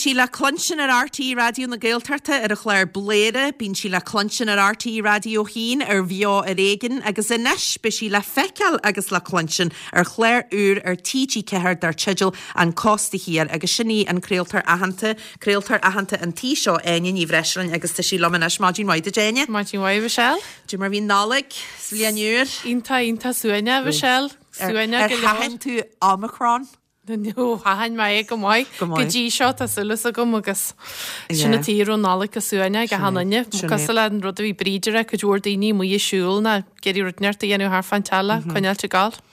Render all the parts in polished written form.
sí le cluinstin ar RTÉ Raidió na Gaeltachta ar an chlár Bladhaire, bíonn sí le cluinstin ar RTÉ Raidió 1 ar Bheo ar Éigean agus anois beidh sí le feiceáil agus le cluinstin ar chlár úr ar TG4 dar teideal An Cósta Thiar agus sin í an craoltóir aitheanta, craoltóir aitheanta an tí seo, Áine Ní Bhreisleáin agus tá sí liom anois. Maidin mhaith duit Áine. Maidin mhaith Michelle. Cad é mar bhí an Nollaig 's Bliain Úr? Iontach, iontach suaimhneach Michelle. Suaimhneach go leor. Ar sheachain tú Omicron? No, sheachain mé é go maith. Go maith. Go dtí seo tá súil agam agus sin an tuige a raibh an Nollaig go suaimhneach ag achan duine. Cosúil le an rud a bhí Bríd a rá, cuid mhór daoine amuigh ag siúl ná ag iarraidh rud inteacht a dhéanamh thart fán teallach, coinneáilt ag gabháil.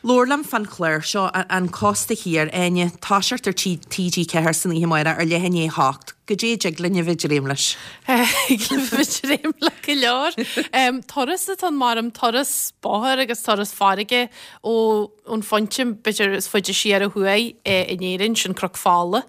Labhair liom fán chlár seo, An Cósta Thiar, Áine, toiseacht ar TG4 san oíche amárach ar leath i ndiaidh a hocht. Goidé a dtig linn a bheith ag dréim leis? Thig linn a bheith ag dréim le go leor. Turas atá ann mar turas bóthair agus turas farraige ó ón phointe b'fhéidir is faide siar ó thuaidh in Éirinn, sin Cnoc Fola,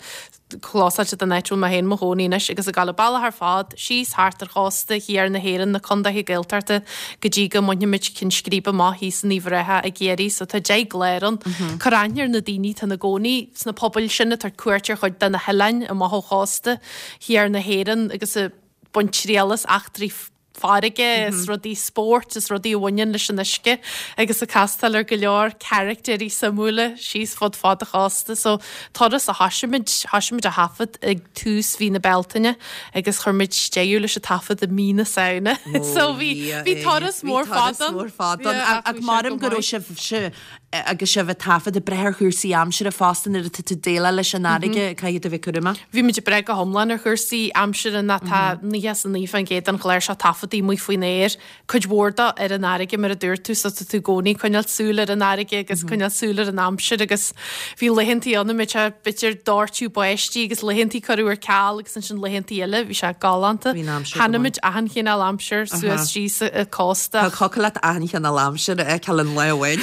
clósáilte don áit a bhfuil mé féin i mo chónaí anois, agus ag dul an bealach ar fad síos thart ar chósta thiar na hÉireann, na condaetha Gaeltachta, go dtí go mbainfimid ceann scríbe amach thíos in Uíbh Ráthach i gCiarraí. So tá 10 gclár ann. Cur aithne ar na daoine atá ina gcónaí sna pobail sin, ag tabhairt cuairt ar chuid de na hoileáin amach ó chósta thiar na hÉireann agus ag baint triail as eachtraí farraige is rudaí spóirt is rudaí a bhaineann leis an uisce agus ag castáil ar go leor caractéirí suimiúla síos fud fad an chósta. So turas a thoisigh muid, thoisigh muid a thaifead ag tús mhí na Bealtaine agus chuir muid deireadh leis an taifead i mí na Samhna. So bhí, bhí turas mór fada ann. Bhí turas mór fada ann. Ach maram go raibh sibh, agus sibh ag taifead ag brath ar chúrsaí aimsire fosta nuair atá tú ag déileáil leis an fharraige, caithfidh tú a bheith cúramach. Bhí muid ag brath go hiomlán ar chúrsaí aimsire ná tá 99% den chlár seo taifeadta amuigh faoin aer, cuid mhór dó ar an fharraige mar a dúirt tú, so tá tú i gcónaí ag coinneáil súil ar an fharraige agus coinneáil súil ar an aimsir agus bhí laethantaí ann a mbeadh sé b'fhéidir doirteadh báistí agus laethantaí cuireadh ar ceal agus ansin laethantaí eile bhí sé galánta. Bhí an aimsir go maith. Chonaic muid achan chineál aimsir suas síos an cósta. Thiocfadh leat achan chineál aimsir a fheiceáil in lá amháin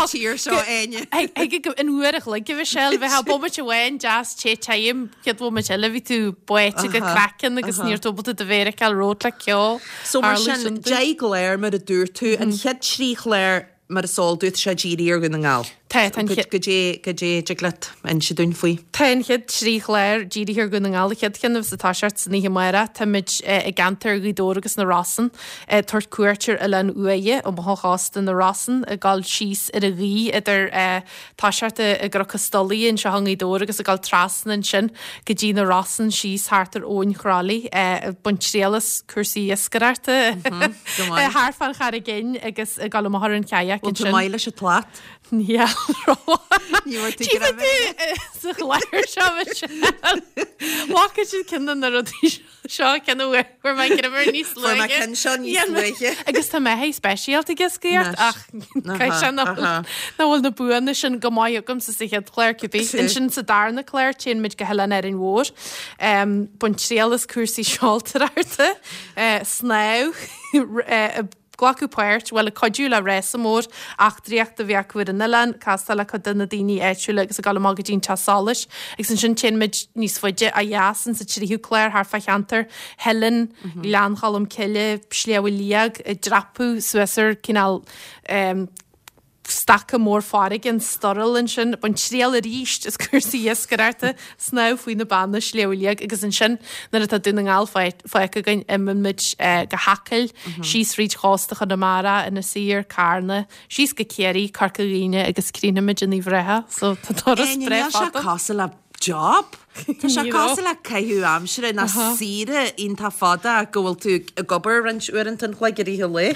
sa tír seo, Áine. Ag in uair a chloig a Mhichelle, bheifeá bomaite amháin deas te tirim, chéad bhomaite eile bhí tú báite go craiceann agus ní raibh tú ábalta do mhéar a fheiceáil romhat le ceo. So mar sin, 10 gclár mar a dúirt tú, an chéad trí chlár Mar is eol duit, tá sé dírithe ar Dhún na nGall. Tá, tá an chéad. Goidé, goidé a dtig leat inse dúinn faoi? Tá an chéad trí chlár dírithe ar Dhún na nGall. An chéad cheann a bheas ag toiseacht san oíche amárach, táimid i gceantar Ghaoth Dobhair agus na Rosann ag tabhairt cuairt ar Oileán Uaighe, amach ó chósta na Rosann, ag dul síos ar an ghaoth idir toiseacht i gCnoc an Stolaire anseo i nGaoth Dobhair agus ag dul trasna ansin go dtí na Rosann síos thart ar Abhainn Chroithlí, ag baint triail as cúrsaí iascaireachta thart fán Charraig Fhinn agus ag dul amach ar an kayak ansin. Bhfuil tú maith leis an tslat? Níl rómhaith. Ní raibh tú Tchífidh tú sa chlár seo Michelle. Bhfaca siad ceann de na rudaí seo. Seo ceann a bhfuair mé greim níos luaithe. Fuair mé ceann seo níos luaithe. Agus tá mé hé speisialta ag iascaireacht ach caithfidh sé nach bhfuil na buanna sin go maith agamsa sa chéad chlár cibé. Ansin sa darna clár téann muid go hOileán Árainn Mhór. Baint triail as cúrsaí seoltóireachta, snámh, glacadh páirt, bhuel, ag cuidiú le rása mór eachtraíochta a bhí acu ar an oileán, castáil le cuid de na daoine áitiúla agus ag dul amach go dtí an teach solais. Agus ansin téann muid níos faide ó dheas in sa tríú clár thart fá cheantar Theilinn, Gleann Cholm Cille, Sliabh Liag, ag dreapadh suas ar cineál staca mór farraige, an Sturrall ansin, baint triail arís as cúrsaí iascaireachta, snámh faoi na beanna, Sliabh Liag agus ansin nuair atá Dún na nGall fágtha againn imíonn muid go hAcaill, síos fríd chósta Chonamara, Inis Oírr, Carna, síos go Ciarraí, Corca Dhuibhne agus críochnaímid in Uíbh Ráthach. So tá turas breá fada. Níl sé cosúil le job. Tá sé cosúil le caitheamh aimsire ná saoire iontach fada ach go bhfuil tú ag obair roinnt uaireanta an chloig i rith an lae.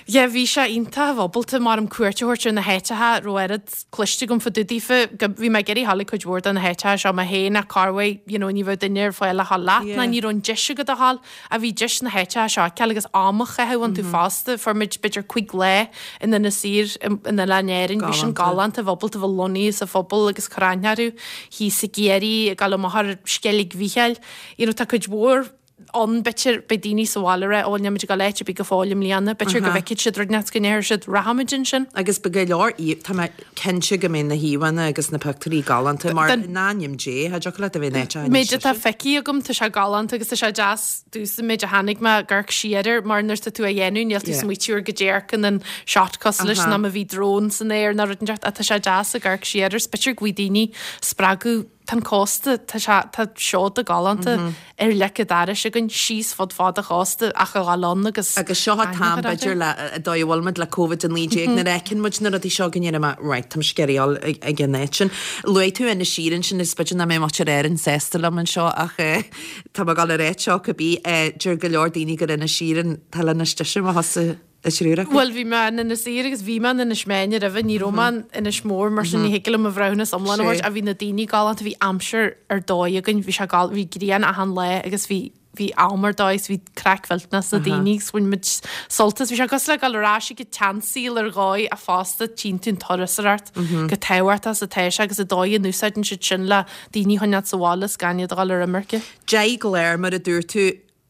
Yeah, bhí sé iontach ábalta mar am cuairt a thabhairt ar na háiteacha a raibh oiread cloiste agam fá dtaobh daofa. Go, bhí mé ag iarraidh dhul ag cuid mhór de na háiteacha seo mé féin ach corruair, you know, ní bheadh duine ar fáil le dhul leat ná ní raibh an deis agat a dhul. Ach bhí deis na háiteacha seo a fheiceáil agus am a chaitheamh iontu fosta. Fuair muid b'fhéidir cuig lá in Inis Oírr in Oileáin Árainn. Bhí sin galánta, bheith ábalta bheith lonnaithe sa phobal agus cur aithne orthu thíos i gCiarraí, ag dul amach ar Sceilg Mhichíl. You know, tá cuid mhór ann, b'fhéidir, beidh daoine sa bhaile ag rá, ó, níl muid ag dul áit ar bith go fóill i mbliana. B'fhéidir go bhfeicfidh siad rud inteacht go ndéarfaidh siad, rachaimid ansin. Agus beidh go leor, tá mé cinnte go mbeidh na híomhánna agus na pictiúirí galánta mar in ainm Dé, cha dtiocfadh leat a bheith in áit a Méid atá feicthe agam, tá sé galánta agus tá sé deas domhsa méid a chonaic mé ag amharc siar air mar nuair atá tú á dhéanamh níl tú ag smaoitiú ar goidé a amharcann an shot cosúil leis ná má bhí drone san aer ná rud inteacht ach tá sé deas ag amharc siar air 's b'fhéidir go bhfaighidh daoine spreagadh. Tá an cósta, tá sé, tá seoda galánta ar leic an dorais againn síos fud fad an chósta ach a dhul ann agus Agus seo an t-am b'fhéidir le, an dóigh a bhfuil muid le Covid-19 nuair a fheiceann muid na rudaí seo go ndeirim right, táim ag iarraidh a dhul ag an áit sin. Luaigh tú Inis Oírr ansin is b'fhéidir nach mbeidh muintir Árann sásta liom anseo ach tá mé ag dul a ráit seo cibé, deir go leor daoine gur Inis Oírr an t-oileán is deise má thosaigh An triúr acu. Bhuel, bhí mé in Inis Oírr agus bhí mé in Inis Meáin roimhe, ní raibh mé in Inis Mór, mar sin ní thig liom mo bhreithiúnas iomlán a thabhairt, ach bhí na daoine galánta, bhí aimsir ar dóigh againn, bhí sé gal, bhí grian achan lá agus bhí, bhí am ar dóigh agus bhí craic mhillteanach sna daoine agus bhain muid sult as, bhí sé cosúil le dul ar ais ag an tseansaol ar dhóigh ach fosta tchíonn tú an turasóireacht chomh tábhachtach is atá sé agus an dóigh a n-úsáideann siad sin le daoine a choinneáil sa bhaile is gan iad a dhul ar imirce. 10 gclár mar a dúirt tú,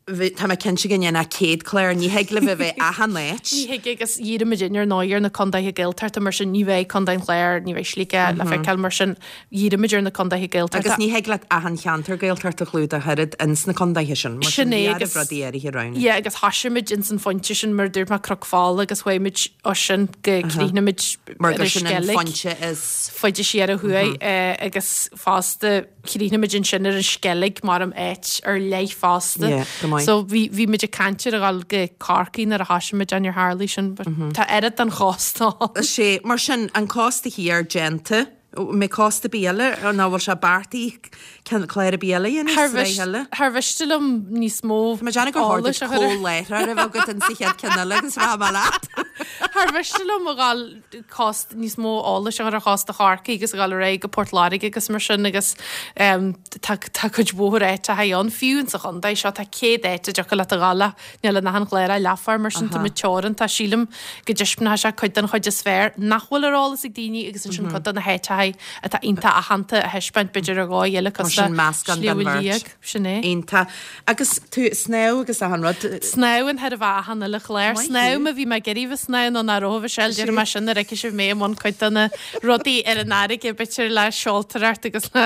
Tá mé cinnte go ndéanfá 100 clár, ní thig libh a bheith achan áit. Ní thig agus dhírigh muid ar ndóigh ar na contaetha Gaeltachta mar sin ní bheidh Contae an Chláir, ní bheidh Sligeach le feiceáil mar sin dhírigh muid ar na contaetha Gaeltachta. Agus ní thig leat achan cheantar Gaeltachta a chlúdach oiread ins na contaetha sin, mar sin bhí oraibh rudaí áirithe a roghnú. Yeah agus thosaigh muid ins an phointe sin mar a dúirt mé Cnoc Fola agus chuaigh muid ó sin go críochnaigh muid Mar gur sin an phointe is. faide siar ó thuaidh agus fosta Chríochnaigh muid ansin ar an Sceilg mar am áit ar leith fosta. Yeah, go maith. So bhí, bhí muid ag caint ar a dhul go Corcaigh nuair a thosaigh muid níor tharlaigh sin but tá oiread den chósta ann. Sea, mar sin, an cósta thiar déanta, mbeidh cósta ar bith eile, nó bhfuil sé beartaithe ceann clár ar bith eile a dhéanamh, Thar sraith eile? thar mhiste liom níos mó Tá mé ag déanamh gur chóir duit eolais a chur ar. comhláithreoir a bheith agat insa chéad ceann eile agus rachaidh mé leat. Thar mhiste liom a dhul cósta, níos mó eolais a chur ar chósta Chorcaí agus a dhul ar aghaidh go Port Láirge agus mar sin agus tá tá cuid mhór áiteacha ann, fiú insa chontae seo tá 100 áit a dtiocfadh leat a dhul ach níl in achan chlár ach leathuair mar sin tá muid teoranta. Sílim go dtaispeánfaidh sé cuid den chuid is fearr nach bhfuil ar eolas ag daoine agus ansin cuid de na háiteacha atá iontach aitheanta a thaispeáint b'fhéidir ar dhóigh eile cosúil le Sliabh Liag. Sin é. Iontach. Agus tú ag snámh agus achan rud. Snámhann chóir a bheith achan uile chlár. Maith thú. Snámhaim a bhí mé ag iarraidh bheith snámh nó nach raibh a Mhichelle, déarfaidh mé sin nuair a fheicfidh sibh mé i mbun cuid de na rudaí ar an fharraige, b'fhéidir le seoltóireacht agus le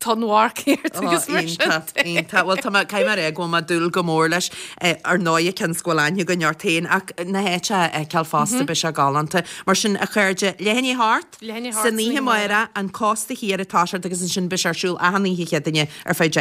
tonnmharcaíocht agus mar sin Iontach, de. iontach. Bhuel tá mé, caithfidh mé a rá go bhfuil mé ag dúil go mór leis. Ar ndóigh cionn is go bhfuil aithne againn ort féin ach na háiteacha a fheiceáil fosta beidh sé galánta. Mar sin a chairde, leath i ndiaidh a hocht, Leath i ndiaidh a hocht san oíche amárach, an Cósta Thiar ag toiseacht agus ansin beidh sé ar siúl achan oíche Chéadaoine ar feadh 10.